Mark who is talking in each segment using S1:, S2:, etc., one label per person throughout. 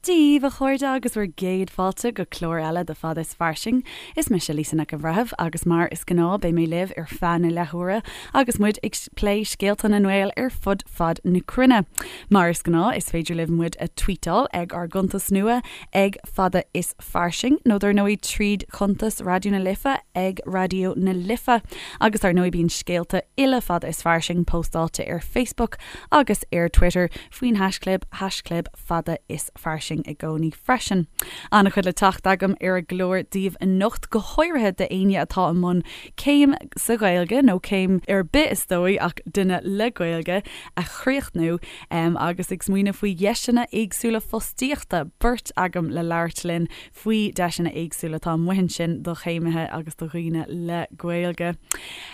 S1: Dia daoibh, a chairde, agus bhur gcéad fáilte go clár eile de Fada is Fairsing. Is mise Lisa Nic an Bhreithimh agus mar is gnáth beidh mé libh ar feadh na leathuaire agus muid ag plé scéalta na nGael ar fud fad na cruinne. Mar is gnáth is féidir libh muid a tweetáil ag ár gcuntas nua ag Fada is Fairsing nó dar ndóigh tríd chuntas Raidió na Life ag Raidió na Life. Agus dar ndóigh bíonn scéalta uile Fada is Fairsing póstáilte ar Facebook agus ar Twitter faoin haischlib, haischlib Fada is Fairsing i gcónaí freisin. An-chuid le teacht agam ar an gclár daoibh anocht, go háirithe d'éinne atá i mbun céim sa Ghaeilge, nó céim ar bith is dóigh ach duine le Gaeilge, a chríochnú agus ag smaoineamh faoi dheiseanna éagsúla fostaíochta. Beirt agam le labhairt linn faoi deiseanna éagsúla atá amuigh ansin do chéimithe agus do dhaoine le Gaeilge.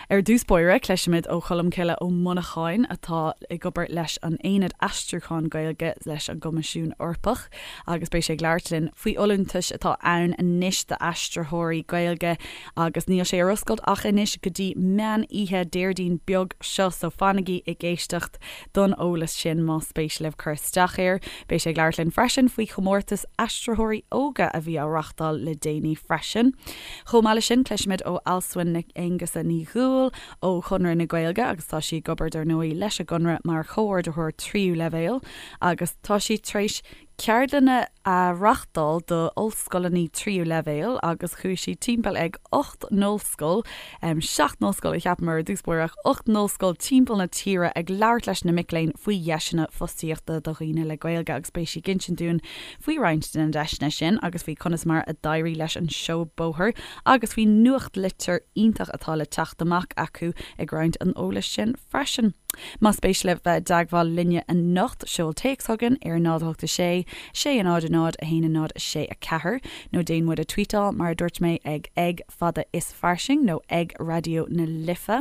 S1: Ar dtús báire, cloisfimid ó Cholmcille Ó Monacháin atá ag obair leis an Aonad Aistriúcháin Gaeilge leis an gCoimisiún Eorpach agus beidh sé ag labhairt linn faoi fholúntais atá ann anois d'aistritheoirí Gaeilge agus níl sé ar oscailt ach anois go dtí meán oíche Déardaoin beag seo so fanaigí ag éisteacht don eolas sin más spéis libh cur isteach air. Beidh sé ag labhairt linn freisin faoi chomórtas aistritheoirí óga a bhí á reachtáil le déanaí freisin. Chomh maith leis sin cloisfimid ó Alswyn Nic Aonghusa Ní Dhúill ó Chonradh na Gaeilge agus tá sí ag obair dar ndóigh leis an gConradh mar chomhordaitheoir tríú leibhéal agus tá sí tar éis ceardlanna a reachtáil do ollscoileanna tríú leibhéal agus chuaigh sí timpeall ag 8 n-ollscoil, 7 n-ollscoil a cheapaim ar dtús báire ach 8 n-ollscoil timpeall na tíre ag labhairt leis na mic léinn faoi dheiseanna fostaíochta do dhaoine le Gaeilge agus beidh sí ag insint dúinn faoi roinnt de na deiseanna sin agus faoi conas mar a d'éirigh leis an seó bóthair agus faoi nuachtlitir iontach atá le teacht amach acu ag roinnt an eolais sin freisin. Más spéis libh bheith i dteagmháil linne anocht, seol téacs chugainn ar 0 8 6 6 0 0 1 0 6 4 nó déan muid a tweetáil mar a dúirt mé ag ag fada is fairsing nó ag Raidió na Life.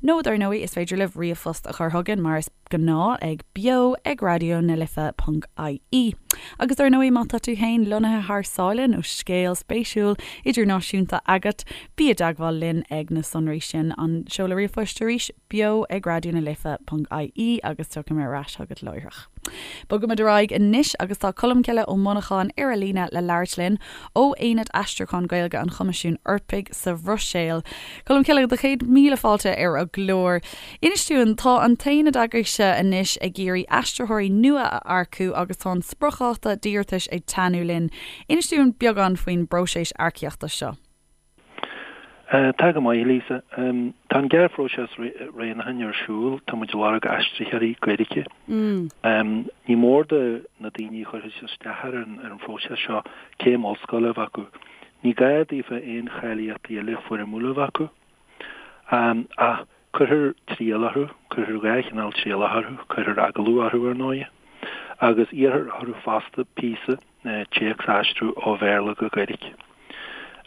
S1: Nó dar ndóigh is féidir libh ríomhphost a chur chugainn mar is gnáth ag beo ag raidió na life ponc ie. Agus dar ndóigh má tá tú féin lonnaithe thar sáile nó scéal spéisiúil idirnáisiúnta agat, bí i dteagmháil linn ag na sonraí sin. An seoladh ríomhphoist arís, beo ag raidió na life ponc ie agus tiocfaidh mé ar ais chugat láithreach. Bogaimid ar aghaidh anois agus tá Colmcille Ó Monacháin ar an líne le labhairt linn ó Aonad Aistriúcháin Gaeilge an Choimisiúin Eorpaigh sa Bhruiséil. Colmcille, do chéad míle fáilte ar an gclár. Inis dúinn, tá an t-aonad agaibhse anois ag iarraidh aistritheoirí nua a earcú agus tá an spriocdháta d'iarratais ag teannadh linn. Inis dúinn beagán faoin bpróiseas earcaíochta seo.
S2: Tá go maith, Lisa. Tá an gearrphróiseas roghnúcháin ar siúl. Tá muid ag lorg aistritheoirí Gaeilge. Ní mór do na daoine a chuirfidh isteach ar an phróiseas seo céim ollscoile a bheith acu. Ní gá daofa aon cháilíochtaí eile foirmiúla a bheith acu. Ach cuirfear triail orthu, cuirfear 2 chineál trialach orthu, cuirfear agallamh orthu ar ndóighe, agus iarrfar orthu fosta píosa téacs a aistriú ó Bhéarla go Gaeilge.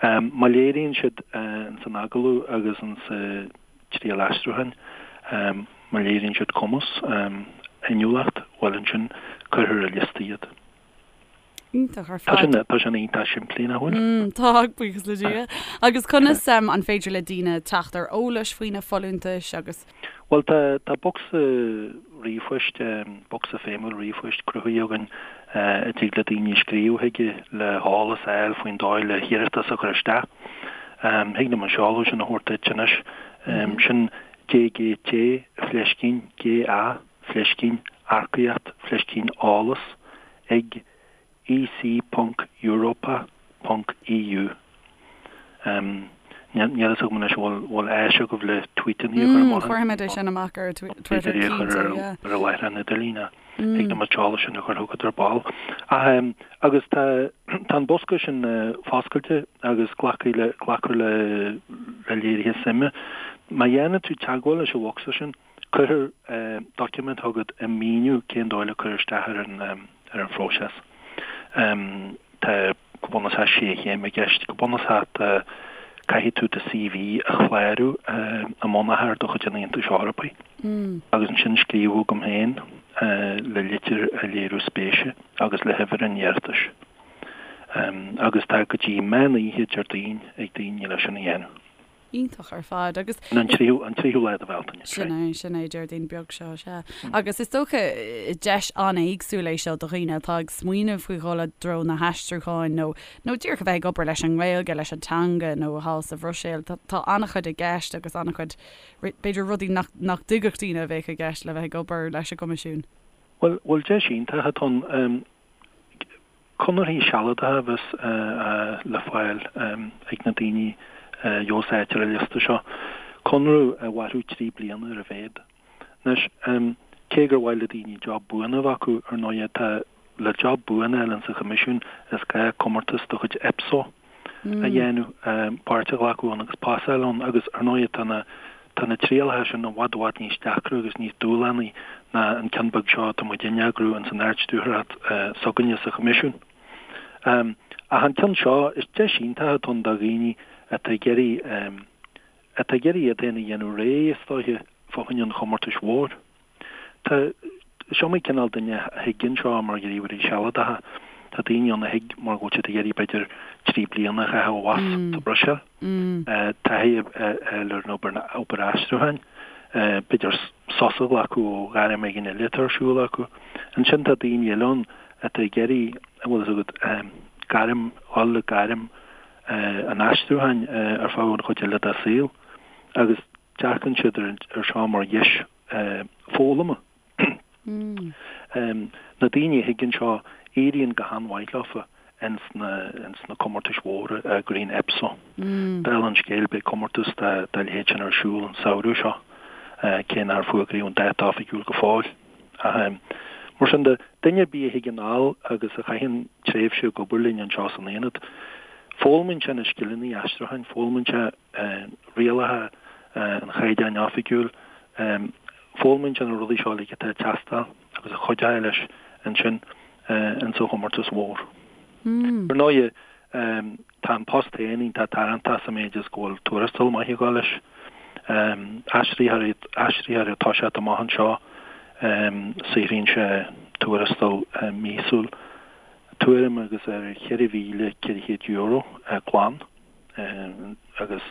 S2: Má léiríonn siad ins an agallamh agus ins an triail aistriúcháin, má léiríonn siad cumas, inniúlacht, bhuel ansin cuirfear ar liosta iad.
S1: Iontach ar fad.
S2: Tá sin iontach simplí, nach
S1: bhfuil? Tá, buíochas le Dia. Agus conas an féidir le daoine teacht ar eolas faoi na folúntais agus.
S2: Bhuel, tá, tá bocsa ríomhphoist, bocsa feidhmiúil ríomhphoist cruthaithe againn a dtig le daoine scríobh chuige le heolas a fháil faoin dóigh le hiarratas a chur isteach. Thig liom an seoladh sin a thabhairt duit anois. Sin DGT fleiscín GA fleiscín earcaíocht fleiscín eolas ag ec ponc europa ponc eu. Níl a fhios agam anois an bhfuil áis agaibh le tweetanna a chur
S1: amach. Cuirfimid é sin amach ar Twitter cinnte,
S2: yeah. Ar an láithreán idirlín, thig liom an t-eolas sin a chur chugat ar ball. Ach agus tá tá an bosca sin foscailte agus glacfaidh le glacfar le le léirithe suime. Má dhéanann tú teagmháil leis an bhocsa sin, Cuirfear doiciméad chugat ag míniú cén dóigh le cur isteach ar an ar an phróiseas. Tá go bunúsach sé chéim i gceist. Go bunúsach tá caithfidh tú do CV a chlárú i mbunachar de chuid an Aontais Eorpaigh agus ansin scríobh chugam féin le litir ag léiriú spéise agus le huimhir an iarratais. Agus tá go dtí meán oíche Déardaoin ag daoine leis sin a dhéanamh.
S1: Iontach ar fad agus.
S2: An tríú, an tríú lá de
S1: Bhealtaine. Sin é, sin é, Déardaoin beag seo, sea. Agus is dócha, deis an-éagsúil é seo do dhaoine atá ag smaoineamh faoi dhul i dtreo na haistriúcháin nó, nó díreach a bheith ag obair leis an nGaeilge, leis an teanga nó thall sa Bhruiséil. Tá, tá an-chuid i gceist agus an-chuid, b'fhéidir rudaí nach, nach dtuigfeadh daoine a bheadh i gceist le bheith ag obair leis an gCoimisiún.
S2: Bhuel, bhuel deis iontach atá ann. Conarthaí sealadacha a bheas le fáil ag na daoine a gheobhas áit ar an liosta seo. Conradh a mhairfeadh 3 bliana ar a mhéad. Anois, cé gur mhaith le daoine job buan a bheith acu, ar ndóighe, tá le job buan a fháil insa Choimisiún is gá comórtas de chuid EPSO a dhéanamh, páirt a ghlacadh ann agus pasáil ann agus ar ndóighe tá na tá na trialacha sin i bhfad i bhfad níos deacra agus níos dúshlánaí ná an ceann beag seo atá muid a eagrú ins an Ard-Stiúrthóireacht s'againne sa Choimisiún. Ach an ceann seo, is deis iontach atá ann do dhaoine atá ag iarraidh atá ag iarraidh iad féin a dhéanamh réidh, is dóiche, fá choinne an chomórtais mhóir. Tá, is iomaí cineál duine a thig anseo mar ghníomhairí sealadacha. Tá daoine ann a thig mar go bhfuil siad ag iarraidh b'fhéidir 3 bliana a chaitheamh abhus sa Bhruiséil. Taithí a fháil ar an obair, obair aistriúcháin. B'fhéidir sos a ghlacadh ó ghairm éigin eile atá ar siúl acu. Ansin tá daoine eile ann atá ag iarraidh, an bhfuil fhios agat, gairm, dhul le gairm an aistriúcháin ar feadh an chuid eile dá saol. Agus dearcann siad ar seo mar dheis foghlama. Na daoine a thig anseo, éiríonn go han-mhaith leofa ins na comórtais mhóra a eagraíonn EPSO. Dála an scéil, beidh comórtas dá leithéid sin ar siúl an samhradh seo, cé nár fuagraíodh an dáta oifigiúil go fóill. Ach mar sin de, duine ar bith a thig anall agus a chaitheann tréimhse ag obair linn anseo san Aonad, foghlaimíonn sé na scileanna aistriúcháin, foghlaimíonn sé rialacha an Chaighdeáin Oifigiúil. Foghlaimíonn sé na rudaí seo uilig atá ag teastáil agus a chuideoidh leis ansin insa chomórtas mhór. Ar ndóighe, tá an post féin iontach tarraingteach sa méid is go bhfuil tuarastal maith ag dul leis. Aistritheoir aistritheoir ag toiseacht amach anseo, saothraíonn sé tuarastal míosúil tuairim agus ar €4,400 glan. agus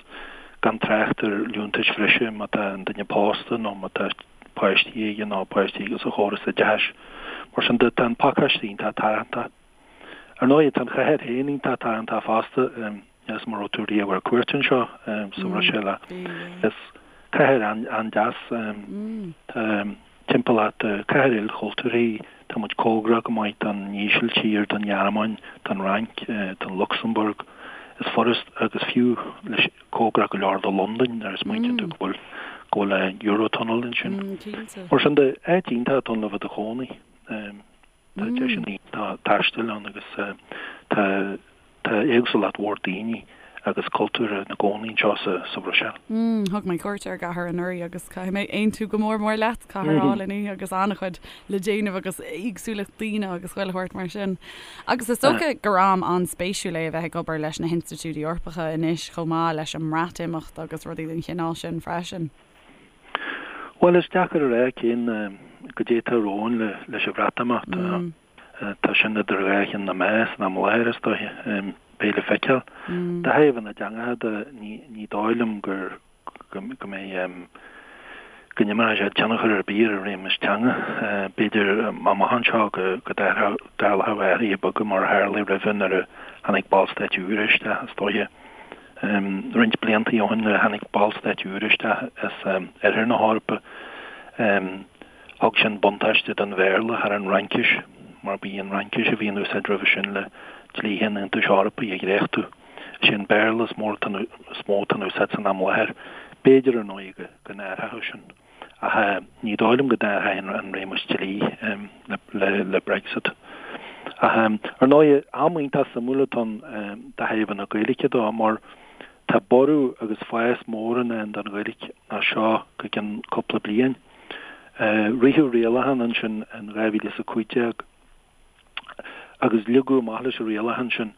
S2: gan trácht ar liúntais bhreise má tá an duine pósta nó má tá páistí aige nó páistí aige sa chóras oideachais. Mar sin de, tá an pacáiste iontach tarraingteach. Ar ndóigh, tá an chathair féin iontach tarraingteach fosta, is mura raibh tú riamh ar cuairt anseo sa Bhruiséil is cathair an-deas. Tá timpeallacht, cathair ilchultúrtha í, tá muid cóngarach go maith don Ísiltír, don Ghearmáin, don Fhrainc, don Lucsamburg. Is furast, agus fiú leis cóngarach go leor do Londain nuair a smaointíonn tú go bhfuil go bhfuil an Eurotunnel ansin. Mar sin de, áit iontach atá ann le bheith i do chónaí. Tá deiseanna iontacha taistil ann agus tá tá éagsúlacht mhór daoine agus cultúr ina gcónaí anseo sa Bhruiséil.
S1: Thug mé cuairt ar an gcathair anuraidh agus caithfidh mé aontú go mór mór leat, cathair álainn í agus an-chuid le déanamh agus éagsúlacht daoine agus chuile shórt mar sin. Agus is dócha gur am an-spéisiúil é a bheith ag obair leis na hinstitiúidí Eorpacha anois chomh maith leis an mBreatimeacht agus rudaí den chineál sin freisin.
S2: Bhuel, is deacair a rá cén goidé atá romhainn leis an Bhreatimeacht. Tá sin idir dhá cheann na meá san am i láthair, is dóiche. Beidh le feiceáil. De thaobh na dteangacha de, ní dóigh liom gur go mbeidh go n-imreoidh sé tionchar ar bith ar an réimeas teanga. B'fhéidir amach anseo go dtarlódh athruithe beaga mar a tharlaigh roimhe nuair a tháinig ballstáit úra isteach, is dóiche. Roinnt blianta ó shin nuair a tháinig ballstáit úra isteach as oirthear na hEorpa, thug sin buntáiste don Bhéarla thar an Fhraincis, mar ba í an Fhraincis a bhí in úsáid roimhe sin le dlíthe an Aontais Eorpaigh a dhréachtú. Is é an Béarla is mó atá in úsáid san am i láthair. B'fhéidir, ar ndóigh, go n-athródh sin. Ach ní dóigh liom go n-athróidh an réimeas dlí le Brexit. Ach ar ndóigh, am iontach suimiúil atá ann de thaobh na Gaeilge de mar tá borradh agus fás mór i ndán don Ghaeilge as seo go ceann cúpla bliain. Ritheadh rialachán ansin in 2015 agus leagadh amach leis an rialachán sin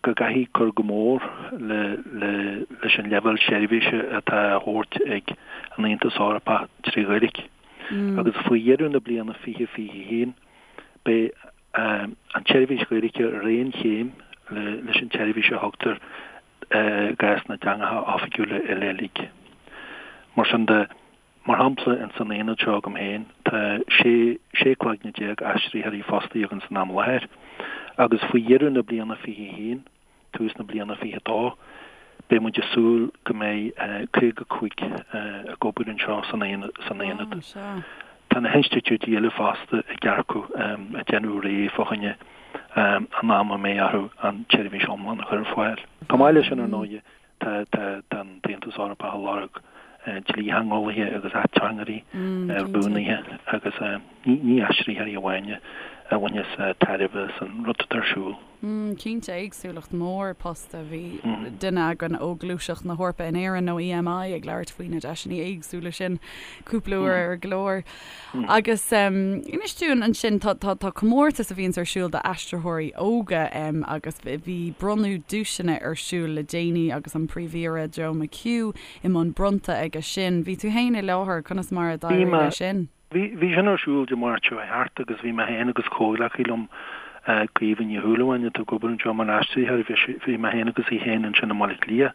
S2: go gcaithfí cur go mór leis an leibhéal seirbhíse atá á thabhairt ag an Aontas Eorpach trí Ghaeilge. Agus faoi dheireadh na bliana 2021, beidh an tseirbhís Ghaeilge ar aon chéim leis an tseirbhís a thugtar. i gcás na dteangacha oifigiúla eile uilig. Mar sin de, mar shampla, ins an aonad seo agam féin, tá 16 sé cloigne aistritheoirí fostaithe againn san am i láthair, agus faoi dheireadh na bliana 21, tús na bliana 22, beidh muid ag súil go mbeidh 55 ag obair anseo san aonad. Tá na hinstitiúidí eile fosta ag earcú, ag déanamh réidh fá choinne an am a mbeidh orthu an tseirbhís iomlán a chur ar fáil. Chomh maith leis sin, ar ndóigh, tá an tAontas Eorpach ag lorg dlítheangeolaithe agus ateangairí, rúnaithe agus ní aistritheoirí amháin a bhaineas tairbhe as an rud atá ar siúl.
S1: Cinnte, éagsúlacht mhór post. Bhí duine againn ó Ghluaiseacht na hEorpa in Éirinn, nó EMI, ag labhairt faoi na deiseanna éagsúla sin cúpla uair ar an gclár. Agus inis dúinn ansin, tá tá comórtas a bhíonns ar siúl d'aistritheoirí óga agus bhí bronnadh duaiseanna ar siúl le déanaí agus an Príomh-Aoire Joe McHugh i mbun bronnta aige sin. Bhí tú féin i láthair, conas mar a d'éirigh leis sin?
S2: Bhí, bhí sin ar siúl Dé Máirt seo chuaigh thart agus bhí mé féin agus comhghleacaí liom, Caoimhe Ní Shúilleabháin, atá ag obair anseo mar aistritheoir, bhí sí, bhí mé féin agus í féin ansin i mBaile Átha Cliath.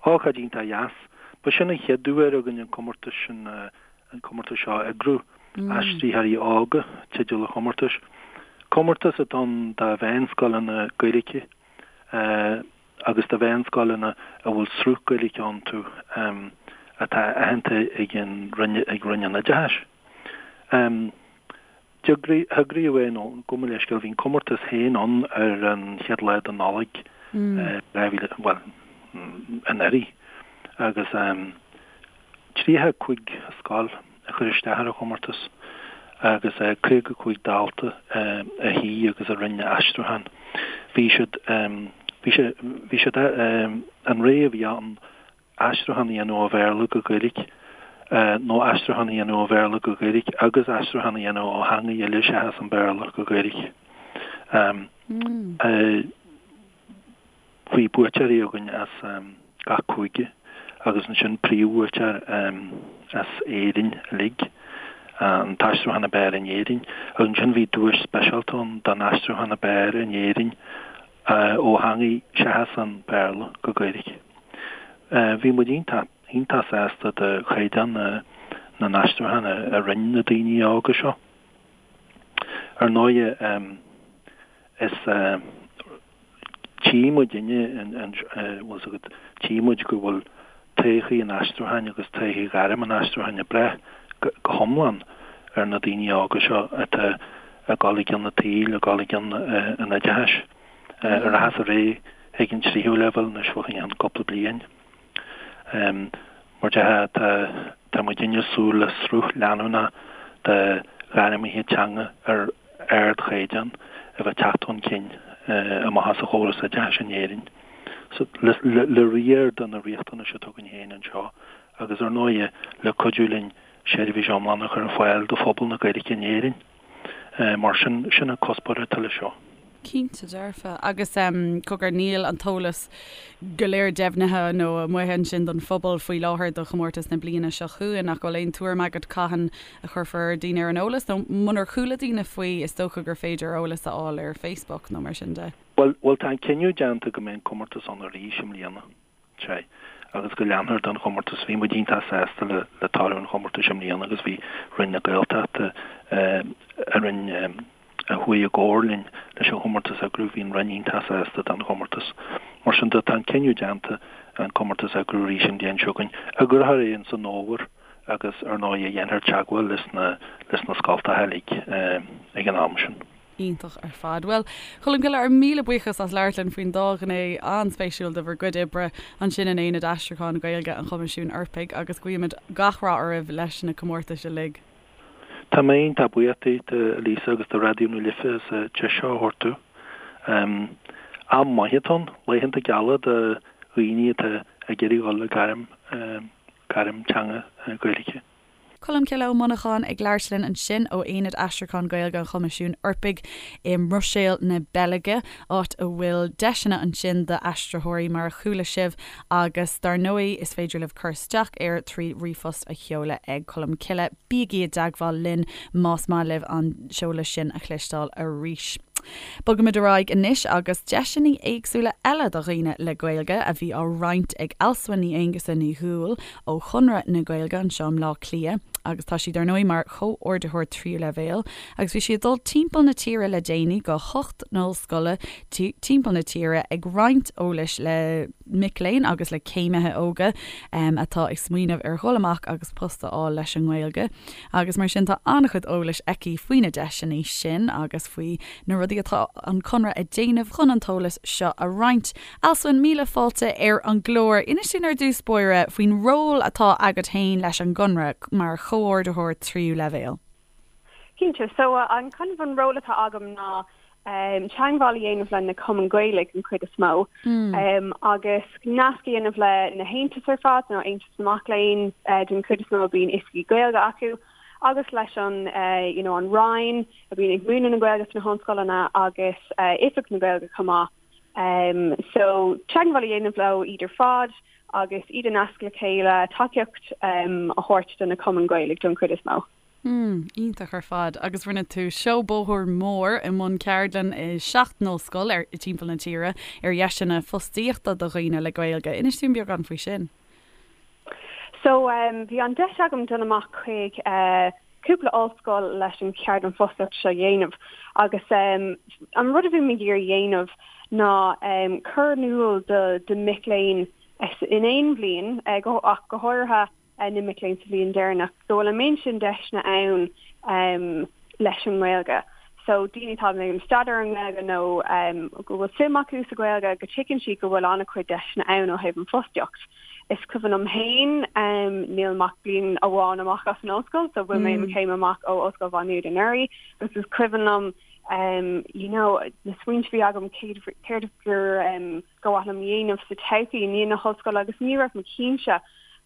S2: Ócáid iontach dheas. Ba sin an chéad uair againn an comórtas sin, an comórtas seo a eagrú. Aistritheoirí Óga, teideal an chomórtais. Comórtas atá ann do mheánscoileanna Gaeilge. agus do mheánscoileanna a bhfuil sruth Gaeilge iontu atá aitheanta ag an Roinn, ag Roinn an Oideachais. D'eagraíodh é, nó gabh mo leithscéal, bhí an comórtas féin ann ar an chéad lá de Nollaig 2000, bhuel, anuraidh, agus 35 scoil a chuir isteach ar an chomórtas agus 55 dalta a shuigh agus a rinne aistriúchán. Bhí siad, bhí sé, bhí siad, an rogha a bhí ann aistriúchán a dhéanamh ó Bhéarla go Gaeilge nó aistriúchán a dhéanamh ó Bhéarla go Gaeilge agus aistriúchán a dhéanamh ó theangaidh eile seachas an Béarla go Gaeilge. Bhí buaiteoirí againn as gach cúige agus ansin príomhbhuaiteoir as Éirinn uilig, an t-aistriúchán ab fhearr in Éirinn. Agus ansin bhí duais speisialta ann don aistriúchán ab fhearr in Éirinn ó theangaidh seachas an Béarla go Gaeilge. Bhí muid iontach, iontach sásta de chaighdeán na n-aistriúchán a rinne na daoine óga seo. Ar ndóighe, is. Tchí muidinne, bhfuil 's agat, tchí muid go bhfuil todhchaí an aistriúcháin agus todhchaí ghairm an aistriúcháin ag brath go hiomlán ar na daoine óga seo atá ag dul i gcionn an tsaoil, ag dul i gcionn an oideachais, a rachas ar aghaidh chuig an tríú leibhéal anois fá choinne cúpla bliain. Mar déarfá, tá tá muidinne ag súil le sruth leanúnach de ghairmithe teanga ar ardchaighdeán a bheith ag teacht chun cinn amach as an chóras oideachais in Éirinn. So, le le riar de na riachtanais atá againn féin anseo agus ar ndóighe le cuidiú linn seirbhís iomlán a chur ar fáil do phobal na Gaeilge in Éirinn. Mar sin, sin an cuspóir atá leis seo.
S1: Cinnte dearfa. Agus cogar, níl an t-eolas go léir deimhnithe nó amuigh ansin don phobal faoi láthair do chomórtas na bliana seo chugainn, ach bhfuil aon tuairim agat cathain a chuirfear daoine ar an eolas? Nó munar chuala daoine faoi, is dócha gur féidir eolas a fháil ar Facebook nó mar sin de.
S2: Bhuel, bhuel tá an cinneadh déanta go mbeidh an comórtas ann arís i mbliana. Sea, agus go leanfar den chomórtas. Bhí muid iontach sásta le le toradh an chomórtais i mbliana agus bhí Roinn na Gaeltachta, a roinn a chuaigh i gcomhar linn leis an chomórtas a eagrú, bhí an Roinn iontach sásta den chomórtas. Mar sin de, tá an cinneadh déanta an comórtas a eagrú arís an bhliain seo chugainn. Eagrófar é ins an fhómhar agus ar ndóigh dhéanfar teagmháil leis na leis na scoltacha uilig ag an am sin.
S1: Iontach ar fad. Bhuel, Colmcille, ár míle buíochas as labhairt linn faoin dá ghné an-spéisiúil de bhur gcuid oibre ansin in Aonad Aistriúcháin Gaeilge an Choimisiúin Eorpaigh agus guímid gach rath oraibh leis na comórtais uilig.
S2: Tá mé iontach buíoch díot, a Lisa, agus do Raidió na Life as an deis seo a thabhairt domh. Am maith atá ann, laethanta geala do dhaoine atá ag iarraidh dhul le gairm, gairm teanga Gaeilge.
S1: Colmcille Ó Monacháin ag labhairt linn ansin ó Aonad Aistriúcháin Gaeilge an Choimisiúin Eorpaigh i mBruiséil na Beilge, áit a bhfuil deiseanna ansin d'aistritheoirí mar a chuala sibh agus dar ndóigh is féidir libh cur isteach air trí ríomhphost a sheoladh ag Colmcille. Bígí i dteagmháil linn más maith libh an seoladh sin a chloisteáil arís. Bogaimid ar aghaidh anois agus deiseanna éagsúla eile do dhaoine le Gaeilge a bhí á roinnt ag Alswyn Ní Aonghusa Ní Dhúill ó Chonradh na Gaeilge anseo i mBleá Cliath agus tá sí dar ndóigh mar chomhordaitheoir tríú leibhéal agus bhí sí ag dul timpeall na tíre le déanaí go hocht n-ollscoile timpeall na tíre ag roinnt eolais le mic léinn agus le céimithe óga atá ag smaoineamh ar dhul amach agus post a fháil leis an nGaeilge. Agus mar sin tá an-chuid eolais aici faoi na deiseanna sin agus faoi na rudaí atá an Conradh ag déanamh chun an t-eolas seo a roinnt. Alswyn, míle fáilte ar an gclár. Inis dúinn ar dtús báire faoin ról atá agat féin leis an gConradh mar chomhordaitheoir tríú leibhéal.
S3: Cinnte. So an kind of an ról atá agam ná teagmháil a dhéanamh le na cumainn Ghaelaigh an chuid is mó agus nasc a dhéanamh le na haontais ar fad, nó Aontas na Mac Léinn den chuid is mó a bíonn oifigí Gaeilge acu agus leis an you know an Roinn a bíonn ag múineadh na Gaeilge sna hollscoileanna agus Oifig na Gaeilge chomh maith. So teagmháil a dhéanamh leo iad ar fad agus iad a nasc le chéile, tacaíocht a thabhairt do na cumainn Ghaelaigh don chuid is mó.
S1: Mm, iontach ar fad. Agus rinne tú seó bóthair mór i mbun ceardlann i seacht n-ollscoil ar timpeall na tíre ar dheiseanna fostaíochta do dhaoine le Gaeilge. Inis dúinn beagán faoi sin.
S3: So, bhí an deis agam dul amach chuig cúpla ollscoil leis an cheardlann fostaíochta seo a dhéanamh agus an rud a bhí mé ag iarraidh a dhéanamh ná cur in iúl do do mic léinn in aon bhliain ach go háirithe na mic léinn sa bhliain deireanach, go bhfuil an méid sin deiseanna ann leis an nGaeilge. So daoine atá ag déanamh staidéar ar an nGaeilge nó go bhfuil suim acu sa Ghaeilge, go dtuigeann siad go bhfuil an-chuid deiseanna ann ó thaobh an fostaíocht. Is cuimhin liom féin, níl mé ach bliain amháin amach as an ollscoil, so bhain mé mo chéim amach ó Ollscoil Mhá Nuad anuraidh, agus is cuimhin liom you know na smaointe a bhí agam céard gur ba mhaith liom a dhéanamh sa todhchaí i ndiaidh na hollscoile agus ní raibh mé cinnte,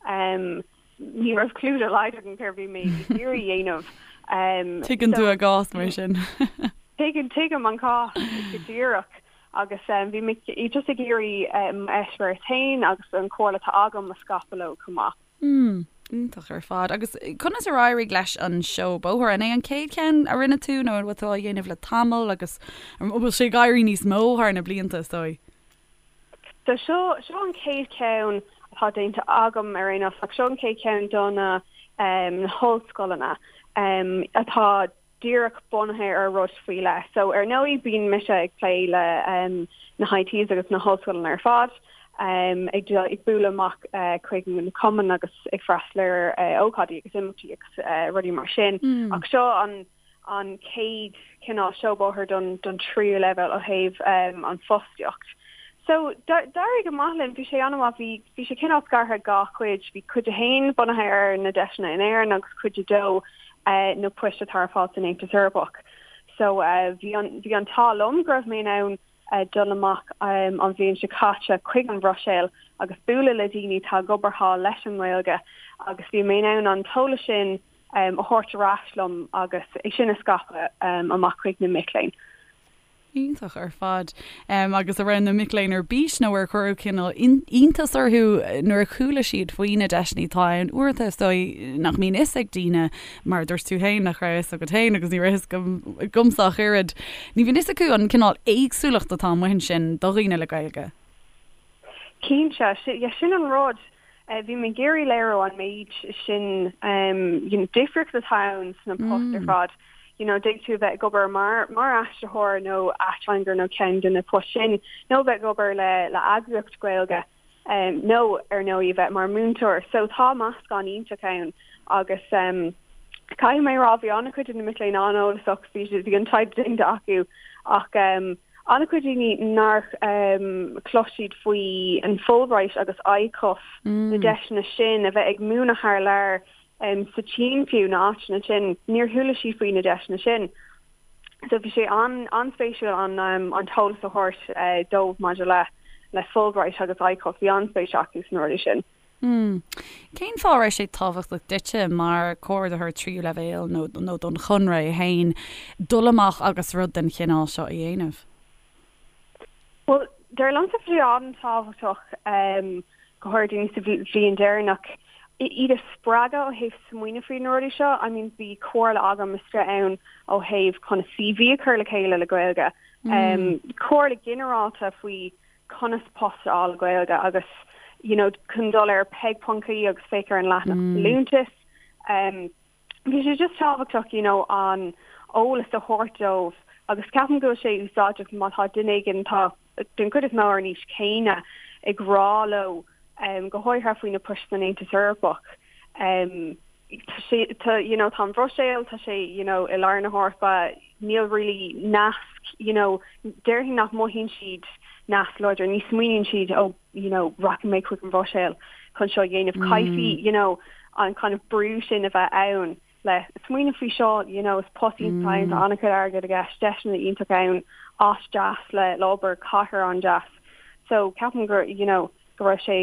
S3: ní raibh clue dá laghad agam céard a bhí mé ag iarraidh a dhéanamh.
S1: Tuigeann tú a gcás mar sin.
S3: Tuigeann, tuigim an cás go díreach agus bhí mé just ag iarraidh m'eispéireas féin agus an chomhairle atá agam a scaipeadh leo chomh maith.
S1: Mm, iontach ar fad. Agus conas ar éirigh leis an seó bóthair? An é an chéad cheann a rinne tú nó an bhfuil tú á dhéanamh le tamall agus an bhfuil sé ag éirí níos mó thar na blianta, is dóigh?
S3: So seo, seo an chéad cheann atá déanta agam ar aon nós ach seo an chéad cheann do na, na hollscoileanna atá díreach bunaithe ar rud faoi leith. So ar ndóigh bíonn mise ag plé le na HITs agus na hollscoileanna ar fad, ag ag bualadh amach chuig na cumainn agus ag freastal ar ócáidí agus imeachtaí agus rudaí mar sin. Ach seo an an chéad cineál seó bóthair don don tríú leibhéal ó thaobh an fostaíocht. So d'éirigh go maith linn, bhí sé an-mhaith, bhí bhí sé cineál scartha i dhá chuid, bhí cuid a haon bunaithe ar na deiseanna in Éirinn agus cuid a dó na poist atá ar fáil san Aontas Eorpach. So bhí an bhí an t-ádh liom go raibh mé in ann dul amach an bhliain seo caite chuig an Bhruiséil agus bualadh le daoine atá ag obair thall leis an nGaeilge agus bhí mé in ann an t-eolas sin a thabhairt ar ais liom agus é sin a scaipeadh amach chuig na mic léinn.
S1: Iontach ar fad. Agus an raibh na mic léinn ar bís nó ar cuireadh cineál iontas orthu nuair a chuala siad faoi na deiseanna atá ann? Uaireanta is dóigh nach mbíonn fhios ag daoine, mar a dúirt tú féin, nach raibh fhios agat féin agus ní raibh fhios agamsa ach oiread. Ní bhíonn fhios acu an cineál éagsúlacht atá amuigh ansin do dhaoine le Gaeilge.
S3: Cinnte, sin an rud. Bhí mé ag iarraidh léiriú an méid sin you know difríocht atá ann sna poist ar fad. You know d'fhéadfadh tú a bheith ag obair mar mar aistritheoir nó ateangaire nó ceann de na poist sin nó bheith ag obair le le eagraíocht Gaeilge nó ar ndóigh a bheith mar múinteoir. So tá meascán iontach ann agus caithfidh mé a rá bhí an-chuid de na mic léinn an-eolasach, bhí bhí an taighde déanta acu ach An-chuid daoine nár chlos siad faoi an Fulbright agus ICUF, na deiseanna sin, a bheith ag múineadh thar lear sa tSín fiú, na áiteanna sin, níor chuala siad faoi na deiseanna sin. So bhí sé an-spéisiúil an t-eolas a thabhairt dóibh maidir le Fulbright agus ICUF, bhí an-spéis acu sna rudaí sin.
S1: Mm. Cén fáth a raibh sé tábhachtach duitse mar chomhordaitheoir tríú leibhéal nó nó don Chonradh é féin dul amach agus rud den chineál seo a dhéanamh?
S3: Bhuel, dar liomsa bhí sé an-tábhachtach go háirithe daoine sa bhliain deireanach iad a spreagadh ó thaobh smaoineamh faoi na rudaí seo. I mean bhí comhairle agam istigh ann ó thaobh conas CV a chur le chéile le Gaeilge. Comhairle ginearálta faoi conas post a fháil le Gaeilge agus you know chun dul ar peig.ie agus féach ar an leathanach folúntas. Bhí sé just tábhachtach you know an eolas a thabhairt dóibh agus ceapaim go bhfuil sé úsáideach má tá duine éigin atá den chuid is mó ar an aois chéanna ag rá leo go háirithe faoi na poist san Aontas Eorpach. Tá sé tá you know tá an Bhruiséil tá sé you know i lár na hEorpa níl really nasc you know déarfainn nach mothaíonn siad nasc láidir ní smaoiníonn siad oh you know rachaidh mé chuig an Bhruiséil chun seo a dhéanamh caithfidh you know an kind of brú sin a bheith ann le smaoineamh faoi seo you know is post iontach ann tá an-chuid airgid i gceist deiseanna iontach ann áit deas le le obair cathair an-deas so ceapaim gur you know go raibh sé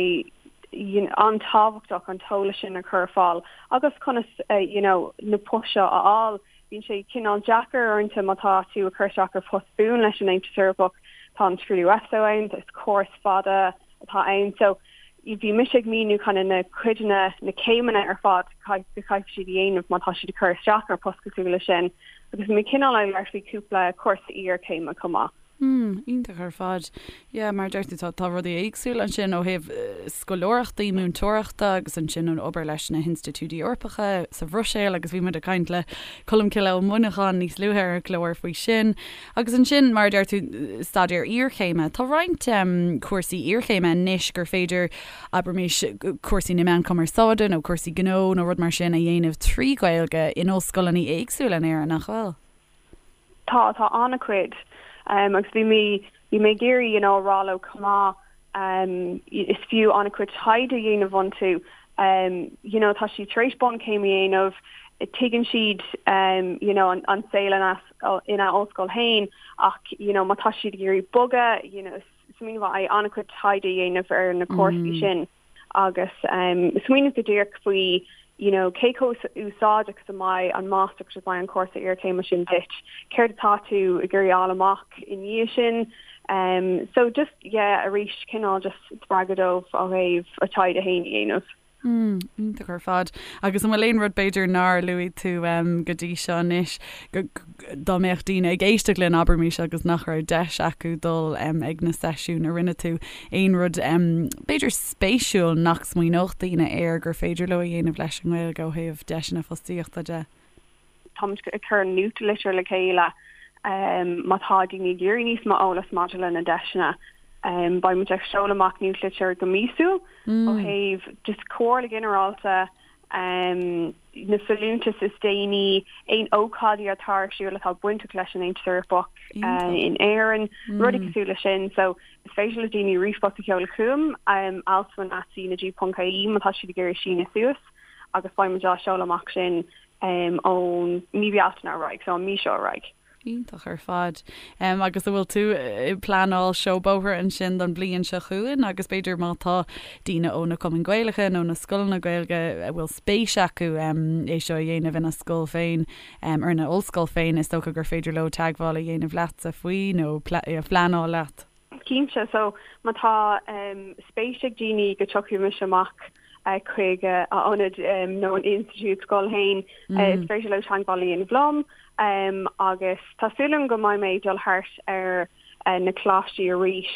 S3: an-tábhachtach an t-eolas sin a chur ar fáil agus conas you know na poist seo a fháil. Bíonn sé cineál deacair uaireanta má tá tú ag cur isteach ar phost buan leis an Aontas Eorpach, tá an scrúdú EPSO ann, is córas fada atá ann so bhí mise ag míniú kind of na cuideanna, na céimeanna ar fad go gcaithfidh siad a dhéanamh má tá siad ag cur isteach ar post cosúil leis sin agus bhí mé cineál ag labhairt faoi cúpla cúrsa iarchéime chomh maith.
S1: Hmm, iontach ar fad. Yeah, mar a deir tú, tá, tá rudaí éagsúla ansin ó thaobh scoláireachtaí múinteoireachta agus ansin an obair leis na hinstitiúidí Eorpacha sa Bhruiséil agus bhí muid ag caint le Colmcille Ó Muineacháin níos luaithe ar an gclár faoi sin. Agus ansin, mar a deir tú, staidéar iarchéime. Tá roinnt cúrsaí iarchéime anois gur féidir, abraimis, cúrsaí na meán cumarsáide nó cúrsaí gnó nó rud mar sin a dhéanamh trí Ghaeilge in ollscoileanna éagsúla in Éirinn, nach bhfuil?
S3: Tá, tá an-chuid. Agus bhí mé, bhí mé ag iarraidh, you know, a rá leo chomh maith, is fiú an-chuid taighde a dhéanamh iontu. You know, tá siad tar éis bunchéim a dhéanamh, tuigeann siad, you know, an saol ina, ina ollscoil féin ach, you know, má tá siad ag iarraidh bogadh, you know, smaoineamh mhaith é an-chuid taighde a dhéanamh ar na cúrsaí sin. agus smaoineamh go díreach faoi you know cé chomh úsáideach is a mbeidh an máistreacht is a mbeidh an cúrsa iarchéime sin duit, céard atá tú ag iarraidh fháil amach i ndiaidh sin. Um, so just yeah arís cineál just spreagadh dóibh ó thaobh a taighde féin a dhéanamh.
S1: Mm, iontach ar fad. Agus an bhfuil aon rud b'fhéidir nár luaigh tú um, go dtí seo anois dá mbeadh daoine ag éisteacht linn, abraimis, agus nach raibh deis acu dul ag na seisiúin a rinne tú, aon rud b'fhéidir spéisiúil nach smaoineodh daoine air gur féidir leo a dhéanamh leis an nGaeilge ó thaobh deiseanna fostaíochta de?
S3: Táimid ag cur nuachtlitir le chéile má tá daoine ag iarraidh níos mó eolas maidir le na deiseanna. Beidh muid ag seoladh amach nuachtlitir go míosúil ó thaobh just comhairle ghinearálta, na folúntais is déanaí, aon ócáidí atá ar siúl atá bainteach leis an Aontas Eorpach in Éirinn, rudaí cosúil leis sin. So is féidir le daoine ríomhphost a sheoladh chugam, alswyn at cnag.ie má tá siad ag iarraidh síneadh suas agus beidh muid á seoladh amach sin ón mí Bealtaine ar aghaidh, so an mí seo ar aghaidh.
S1: Iontach ar fad. Agus an bhfuil tú ag pleanáil seó bóthair ansin don bhliain seo chugainn agus b'fhéidir má tá daoine ó na cumainn Gaelacha nó na scoileanna Gaeilge a bhfuil spéis acu é seo a dhéanamh ina scoil féin ar ina ollscoil féin, is dócha gur féidir leo teagmháil a dhéanamh leatsa faoi nó pleanáil leat.
S3: Cinnte. So, má tá spéis ag daoine go dtiocfaidh mise amach chuig a ionad nó an institiúid scoil féin, is féidir leo teagmháil a dhéanamh liom agus tá súil agam go mbeidh mé ag dul thart ar na coláistí arís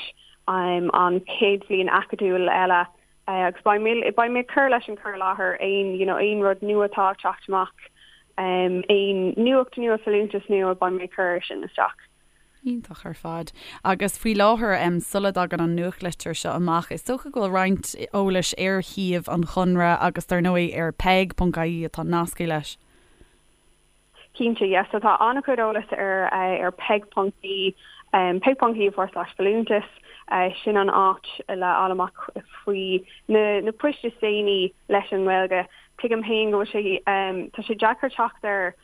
S3: an chéad bhliain acadúil eile agus beidh mé beidh mé ag cur leis an cur i láthair aon you know aon rud nua atá ag teacht amach, aon nuacht nua, folúntas nua, beidh mé ag cur sin isteach.
S1: Iontach ar fad. Agus faoi láthair, sula dtagann an nuachtlitir seo amach, is dócha go bhfuil roinnt eolais ar shuíomh an Chonradh agus dar ndóigh ar peig.ie atá nasctha leis.
S3: Cinnte, yes. So tá an-chuid eolais ar ar peig.ie, peig.ie forward slash folúntas. Sin an áit le fháil amach faoi na na poist is déanaí leis an nGaeilge. Tuigim féin go bhfuil sé, tá sé deacair teacht ar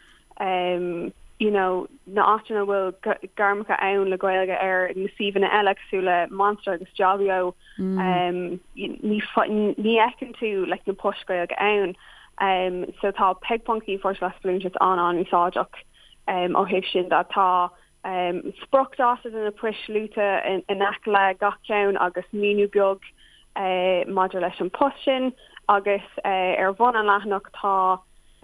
S3: you know na áiteanna a bhfuil gairmeacha ann le Gaeilge ar na suíomhanna eile cosúil le Monster agus Jobbio ní ní fheiceann tú like na poist Gaeilge ann um, so tá peig.ie forward slash folúntas an-an-úsáideach um, ó thaobh sin de tá um, spriocdháta de na poist luaite in, in aice le gach ceann agus míniú beag uh, maidir leis an post sin agus uh, ar bhun an leathanach tá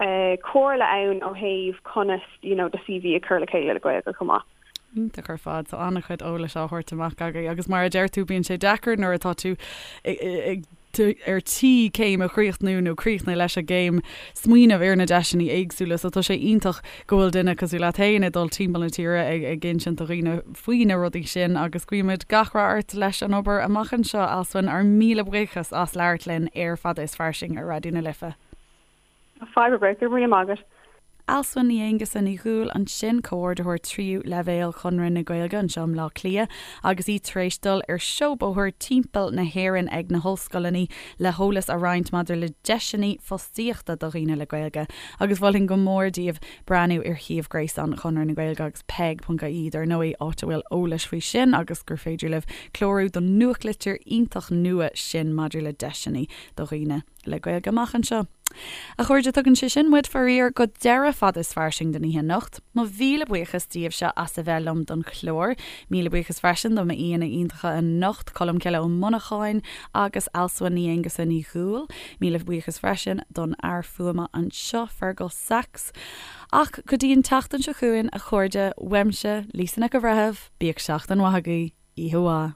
S3: comhairle ann ó thaobh conas you know do CV a chur le chéile le Gaeilge chomh maith.
S1: Iontach ar fad. Tá an-chuid eolais á thabhairt amach agaibh agus mar a deir tú bíonn sé deacair nuair atá tú ag ar tí céim a chríochnú nó críochnú leis an gcéim smaoineamh ar na deiseanna éagsúla so tá sé iontach go bhfuil duine cosúil leat féin ag dul timpeall na tíre ag ag insint do dhaoine faoi na rudaí sin agus guímid gach rath ort leis an obair amach anseo Alswyn. Ár míle buíochas as labhairt linn ar Fada is Fairsing ar Raidió na Life.
S3: Fadhb ar bith, go raibh míle maith agat.
S1: Alswyn Ní Aonghusa Ní Dhúill ansin, Comhordaitheoir Tríú Leibhéal Chonradh na Gaeilge anseo i mBleá Cliath agus í tar éis dul ar seó bóthair timpeall na hÉireann ag na hollscoileanna le heolas a roinnt maidir le deiseanna fostaíochta do dhaoine le Gaeilge agus mholfainn go mór daoibh breathnú ar shuíomh gréasáin Chonradh na Gaeilge agus peig.ie dar ndóigh, áit a bhfuil eolais faoi sin agus gur féidir libh clárú don nuachtlitir iontach nua sin maidir le deiseanna do dhaoine le Gaeilge amach anseo. A chairde, tugann sé sin muid, faraor, go deireadh Fada is Fairsing don oíche anocht. Mo mhíle buíochas daoibhse as a bheith liom don chlár. Míle buíochas freisin do m'aíonna iontacha anocht, Colmcille Ó Monacháin agus Alswyn Ní Aonghusa Ní Dhúill. Míle buíochas freisin don fhear fuaime anseo, Fergal Sachs. Ach go dtí an tseachtain seo chugainn, a chairde, uaimse, Lisa Nic an Bhreithimh, bíodh seachtain mhaith agaibh. Oíche mhaith.